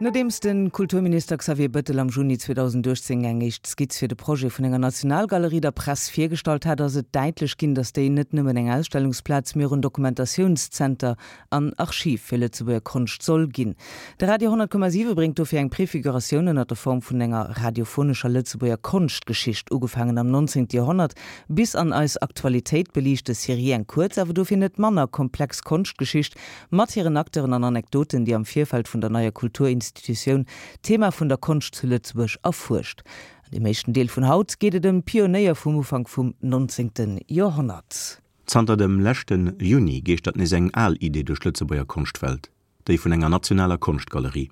Nodeems de Kulturminister Xavier Bëttel am Juni 2018 eng éischt Skizz fir de Projet vun enger Nationalgalerie der Press virgestallt hat, ass et däitlech ginn, datt déi net nëmmen eng Ausstellungsplaz, mee och en Dokumentatiounszenter an Archiv fir Lëtzebuerger Konscht soll ginn. De Radio 100,7 bréngt dofir eng Prefiguratioun ënner der Form vun enger radiophonescher Lëtzebuerger Konschtgeschicht, ugefaangen am 19. Joerhonnert bis an eis Aktualitéit, beliicht des Serie eng kuerz, awer dofir net manner komplex Konschtgeschicht Mat hiren Acteuren an Anekdoten, déi am Virfeld vun der neier Kulturinstitutioun d'Thema vun der Konscht zu Lëtzebuerg erfuerscht. An deem éischten Deel vun haut geet et ëm d'Pionéier vum Ufank vum 19. Joerhonnert. Zanter dem leschte Juni geeschtert nees eng al Idee duerch d'Lëtzebuerger Konschtwelt, déi vun enger nationaler Konschtgalerie.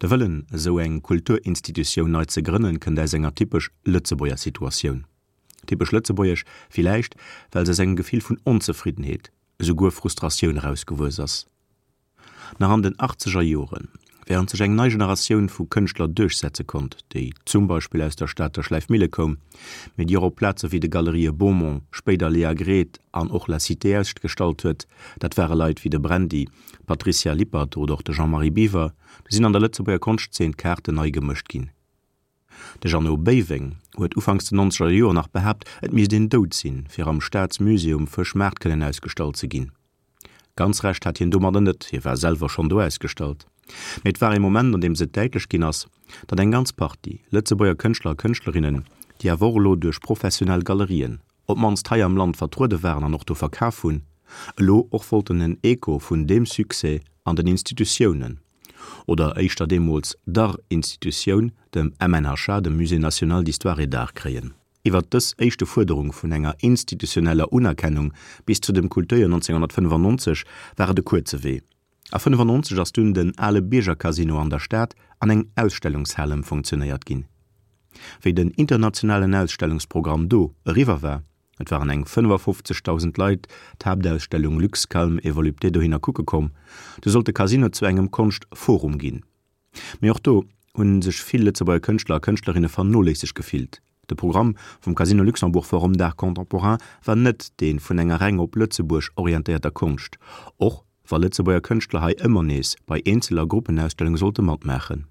De Wëllen, esou eng Kulturinstitutioun nei ze grënnen, kënnt aus enger typesch Lëtzebuerger Situatioun. Typesch lëtzebuergesch villäicht, well se aus engem Gefill vun Onzefriddenheet, esouguer Frustratioun erausgewuess ass. Nach an den achtzeger Joren, wärend sech eng nei Generatioun vu Kënschtler duerchsetze konnt, déi zum Beispill aus der Stater Schläifmille koum, mee déi och op Plaze wéi de Galerië Beaumont, spéider Léa Gret an och La Cité ausgestallt huet, dat ware Leit wéi de Brandy, d'Patricia Lippert oder och de Jean-Marie Biwer, du sinn an der Lëtzebuerger Konschtzeen d'Kaarten nei gemëscht ginn. De Jeannot Béiweng huet ufanks den nonzeger Joer nach behaapt, et misst een dout sinn, fir am Staatsmusée um Fëschmaart kënnen ausgestallt ze ginn. Ganz Recht hat hien domadder net, hie war selwer schonn do ausgestallt. Mee et war ee Moment, an deem et däitlech ginn ass, datt eng ganz Partie Lëtzebuerger Kënschtler a Kënschtlerinnen, déi awer och elo duerch professionell Galerien, op d'mannst hei am Land vertruede waren an och do verkaf hunn, elo och wollten en Echo vun deem Succès an den Institutiounen, oder éischter deemools der Institutioun, dem MNHA, dem Musée national d'histoire et d'art, kréien. Iwwert dës éischte Fuerderung vun enger institutioneller Unerkennung bis zu dem Kulturjoer 1995 war et e kuerze Wee. A 95 ass dunn den ale Biergercasino an der Stad an eng Ausstellungshal ëmfonctionéiert ginn. Wéi den internationalen Ausstellungsprogramm do eriwwer war, et waren eng 55.000 Leit d'Haaptausstellung Luxe, Calme et Volupté dohinner kucke komm, du sollt de Casino zu engem Konschtforum ginn. Mee och do hu sech vill Lëtzebuerger Kënschtler a Kënschtlerinne vernoléisseg gefillt. De Programm vum Casino Luxembourg Forum d'Art Contemporain war net dee vun enger reng op Lëtzebuerg orientéierter Konscht, och wa Lëtzebuerger Kënschtler hei ëmmer nees bei Eenzel a Gruppenausstellunge sollte matmaachen.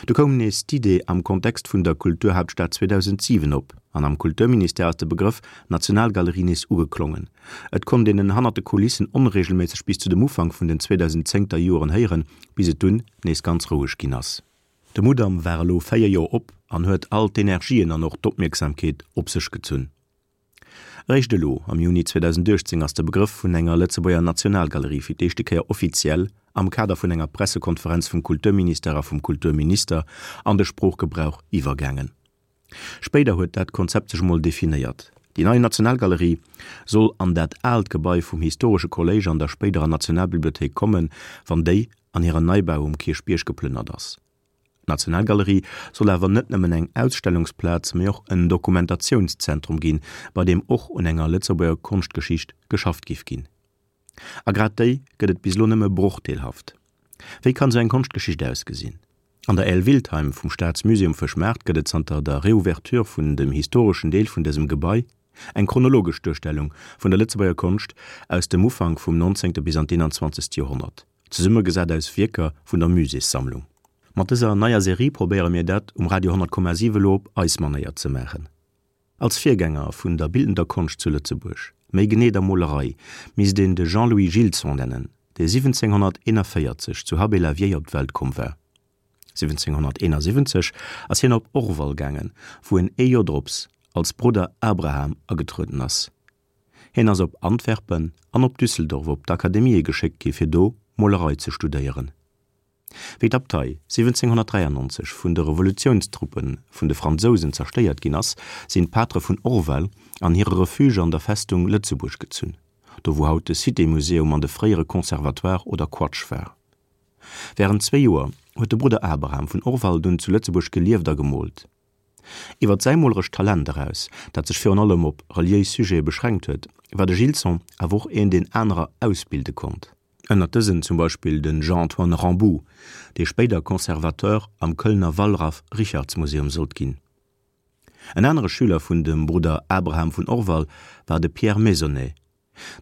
Du koum nees d'Idee am Kontext vun der Kulturhaaptstad 2007 op an am Kulturministère ass de Begrëff Nationalgalerie nees ugeklongen. Et konnt een en hannert de Kulissen onreegelméisseg bis zu dem Ufank vun den 2010 ter Joren héieren, bis et dunn nees ganz roueg ginn ass. De Mudam war elo 4 Joer op an huet all d'Energien an och d'Opmierksamkeet op sech gezunn. Eréischt elo, am Juni 2018, ass de Begrëff vun enger Lëtzebuerger Nationalgalerie fir d'éischte Kéier offiziell am Kader vun enger Pressekonferenz vum Kulturministère a vum Kulturminister an de Sproochgebrauch iwwergaangen. Spéider huet dat Konzept sech emol definéiert. Déi nei Nationalgalerie soll an dat aalt Gebai vum historesche Kolléisch an der spéiderer Nationalbibliothéik kommen, wann déi an hiren Neibau um Kierchbierg geplënnert ass. D'Nationalgalerie soll awer net nëmmen eng Ausstellungsplaz, mee och en Dokumentationszentrum ginn, bei deem och un enger Lëtzebuerger Konschtgeschicht geschafft giff ginn. A grad déi gëtt et bis elo nëmme brochdeelhaft. Wéi kann esou eng Konschtgeschicht ausgesinn? An der Aile Wiltheim vum Staatsmusée um Fëschmaart gëtt et zanter der Reouverture vun dem historeschen Deel vun dësem Gebai eng chronologesch Duerstellung vun der Lëtzebuerger Konscht aus dem Ufank vum 19. bis an d'21. Joerhonnert. Zesummegesat aus Wierker vun der Muséessammlung. Mat dëser neier Serie probéiere mir dat um Radio 100,7 elo op eis Manéier ze maachen. Als Virgänger vun der bildender Konscht zu Lëtzebuerg, méi genee der Molerei, misst een de Jean-Louis Gilson nennen, dee 1741 zu Habay-la-Vieille op d'Welt komm war. 1771 ass hien op Orval gaangen, wou en ee Joer drops als Brudder Abraham agetrueden ass. Hien ass op Antwerpen an op Düsseldorf op d'Akademië geschéckt gi fir do Molerei ze studéieren. Wéi d'Abtei 1793 vun de Revolutiounstruppe vun de Fransousen zerstéiert ginn ass, sinn d'Patere vun Orval an hire Refuge an der Festung Lëtzebuerg gezunn, do wou haut de Cité Museum an de fréiere Conservatoire oder Quatsch war. Wärend zwee Joer huet de Brudder Abraham vun Orval dunn zu Lëtzebuerg gelieft a gemoolt. Iwwer säi molerescht Talent eraus, dat sech virun allem op reliéis Sujete beschränkt huet, war de Gilson awer och een, deen anerer ausbilde konnt. Ënnert dësen zum Beispill de Jean-Antoine Ramboux, dee spéider Conservateur am Kölner Wallraf-Richartz-Museum sollt ginn. En anere Schüler vun dem Brudder Abraham vun Orval war de Pierre Maisonnet.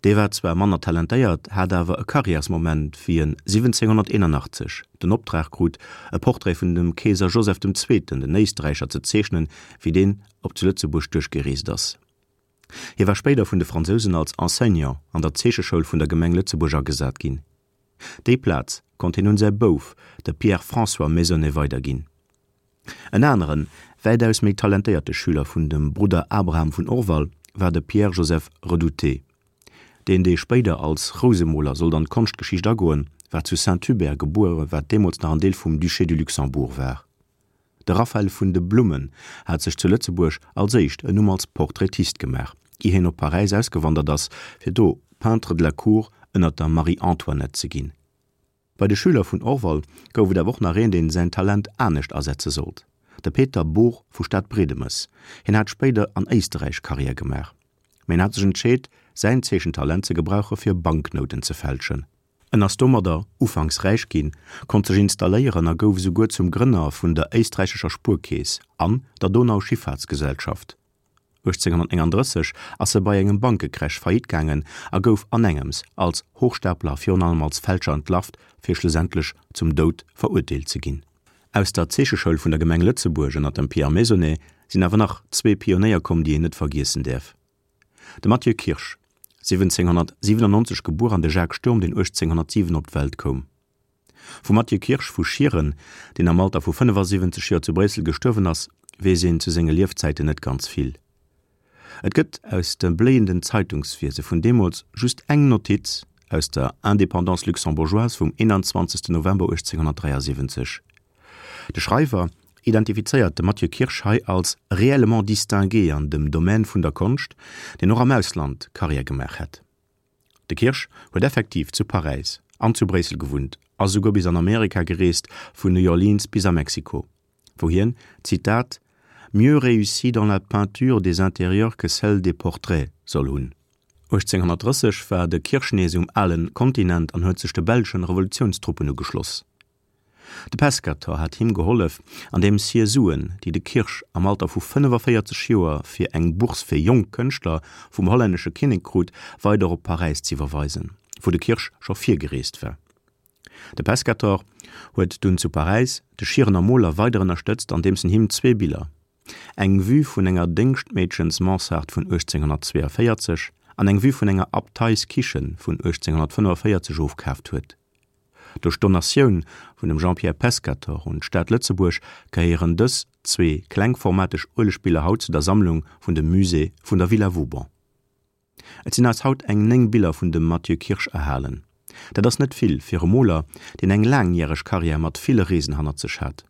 Dee war zwar manner talentéiert, hat awer e Karriärsmoment, wéi en 1781 den Optrag krut, e Portrait vun dem Keeser Joseph dem Zweeten, den Éisträicher, ze zeechnen, wéi deen op zu Lëtzebuerg duerchgereest ass. Hie war spéider vun de Fransousen als Enseignant an der Zeecheschoul vun der Gemeng Lëtzebuerg agesat ginn. Déi Plaz konnt hien un säi Bouf, de Pierre-François Maisonnet, weiderginn. En aneren, wäitaus méi talentéierte Schüler vun dem Brudder Abraham vun Orval war de Pierre-Joseph Redouté. Deen, dee spéider als Rousemoler sollt an d'Konschtgeschicht agoen, war zu Saint-Hubert gebuer, wat deemools nach en Deel vum Duché du Luxembourg war. De Raphael vun de Blummen hat sech zu Lëtzebuerg als éischt en Numm als Portraitist gemaach, ier hien op Paräis ausgewandert ass, fir do Peintre de la cour ënner der Marie-Antoinette ze ginn. Bei de Schüler vun Orval gouf et awer och nach een, deen säin Talent anescht asetze sollt, de Peter Bohr vu Stadbredemes. Hien hat spéider an Éisterräich Karriär gemaach, mä hien hat sech entscheet, säin Zeechentalent ze gebrauche fir Banknouten ze fälschen. En ass domadder ufanks räich ginn, konnt sech installéieren a gouf esouguer zum Grënner vun der éisträichescher Spuerkeess an der Donau-Schifffahrtsgesellschaft. 1839 ass e bei engem Bankecrash faillite gaangen a gouf anengems als Hochstapler a virun allem als Fälscher entlarvt, fir schlussendlech zum Doud verurteelt ze ginn. Aus der Zeecheschoul vun der Gemeng Lëtzebuerg ënner dem Pierre Maisonnet sinn awer nach zwee Pionéier komm, déi een net vergiessen däerf. De Mathieu Kirsch, 1797 gebuer, an de Jacques Sturm, deen 1807 op d'Welt koum. Vum Mathieu Kirsch vu Schieren, deen am Alter vu 75 Joer zu Bréissel gestuerwen ass, weess een zu senge Liefzäiten net ganz vill. Et gëtt aus dem bléienden Zeitungswiese vun deemools just eng Notiz aus der Indépendance luxembourgeoise vum 21 November 1873. De Schreiwer identifizéiert de Mathieu Kirsch hei als réellement distingué an dem Domaine vun der Konscht, deen och am Ausland Karriär gemaach hätt. De Kirsch huet effektiv zu Paräis an zu Bréissel gewunnt a souguer bis an Amerika gereest, vun New Orleans bis a Mexiko, wou hien, Zitat, mieux réussi dans la peinture des intérieurs que celle des portraits soll hunn. 1830 war de Kirsch nees um alen Kontinent an huet sech de belschen Revolutiounstruppen ugeschloss. De Pescator hat him gehollef, andeems hie Suen, déi de Kirsch am Alter vu 45 Joer fir eng Bourse fir jonk Kënschtler vum hollännesche Kinnek krut, weider op Paräis z'iwwerweisen, wou de Kirsch scho virgereest war. De Pescator huet dunn zu Paräis de Schierener Moler weider ënnerstëtzt, andeems en him zwee Biller, eng Vue vun enger Déngschtmeedchens-Mansard vun 1842 an eng Vue vun enger Abteiskichen vun 1845 ofkaaft huet. Duerch d'Donatioun vun dem Jean-Pierre Pescatore un d'Stad Lëtzebuerg gehéieren dës zwee klengformateg Uelegbiller haut zu der Sammlung vun dem Musée vun der Villa Vauban. Et sinn eis haut eng 9 Biller vun dem Mathieu Kirsch erhalen. Dat ass net vill fir e Moler, deen eng laangjäreg Karriär mat ville Reesen hannert sech hat.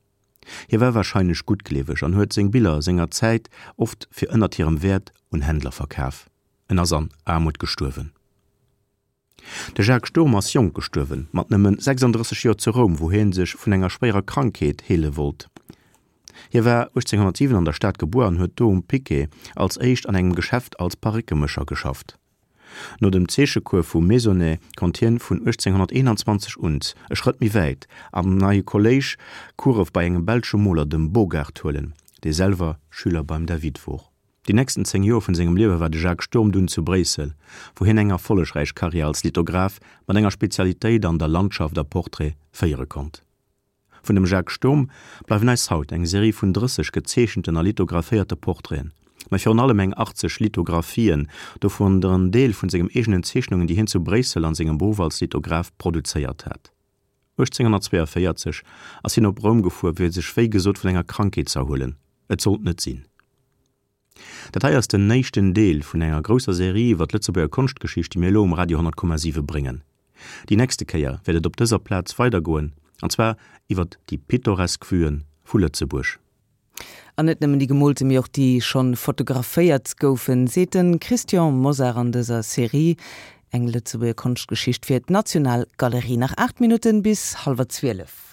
Hie war warscheinlech guttgleeweg an huet seng Biller senger Zäit oft fir ënnert hirem Wäert un Händler verkaf. En ass an Aarmut gestuerwen. De Jacques Sturm ass jonk gestuerwen, mat nëmmen 36 Joer zu Roum, wou hie sech vun enger schwéierer Krankheet heele wollt. Hie war 1807 an der Stad gebuer an huet do um Piquet als éischt an engem Geschäft als Parréckemécher geschafft. No dem Zeechecours vum Maisonnet konnt hien vun 1821 un e Schrëtt méi wäit am neie Kolléisch Course bei engem belsche Moler, dem Bogart, huelen, dee selwer Schüler beim David wor. Déi nächsten 10 Joer vun sengem Liewe war de Jacques Sturm dunn zu Bréissel, wou hien eng erfollegräich Karriär als Lithograph mat enger Spezialitéit an der Landschaft a Portrait féiere konnt. Vun dem Jacques Sturm bleiwen eis haut eng Serie vun 30 gezeechenten a lithographéierte Portraiten, mä virun allem eng 80 Lithographien, dovun der en Deel vun sengem eegenen Zeechnungen, déi hien zu Bréissel an sengem Beruff als Lithograph produzéiert hat. 1842 ass hien op Roum gefuer, fir sech wéi gesot vun enger Krankheet z'erhuelen. Et sollt net sinn. Dat hei ass den éischten Deel vun enger grousser Serie iwwer d'Lëtzebuerger Konschtgeschicht, déi mir elo um Radio 100,7 bréngen. Déi nächste Kéier wäert et op dëser Plaz weidergoen, an zwar iwwer déi pittoresk Vuen vu Lëtzebuerg. An net nëmmen déi gemoolte, mee och déi schonn fotograféiert goufen, seet de Christian Mosar an dëser Serie Eng Lëtzebuerger Konschtgeschicht fir d'Nationalgalerie. Nach 8 Minutten bis hallwer 12.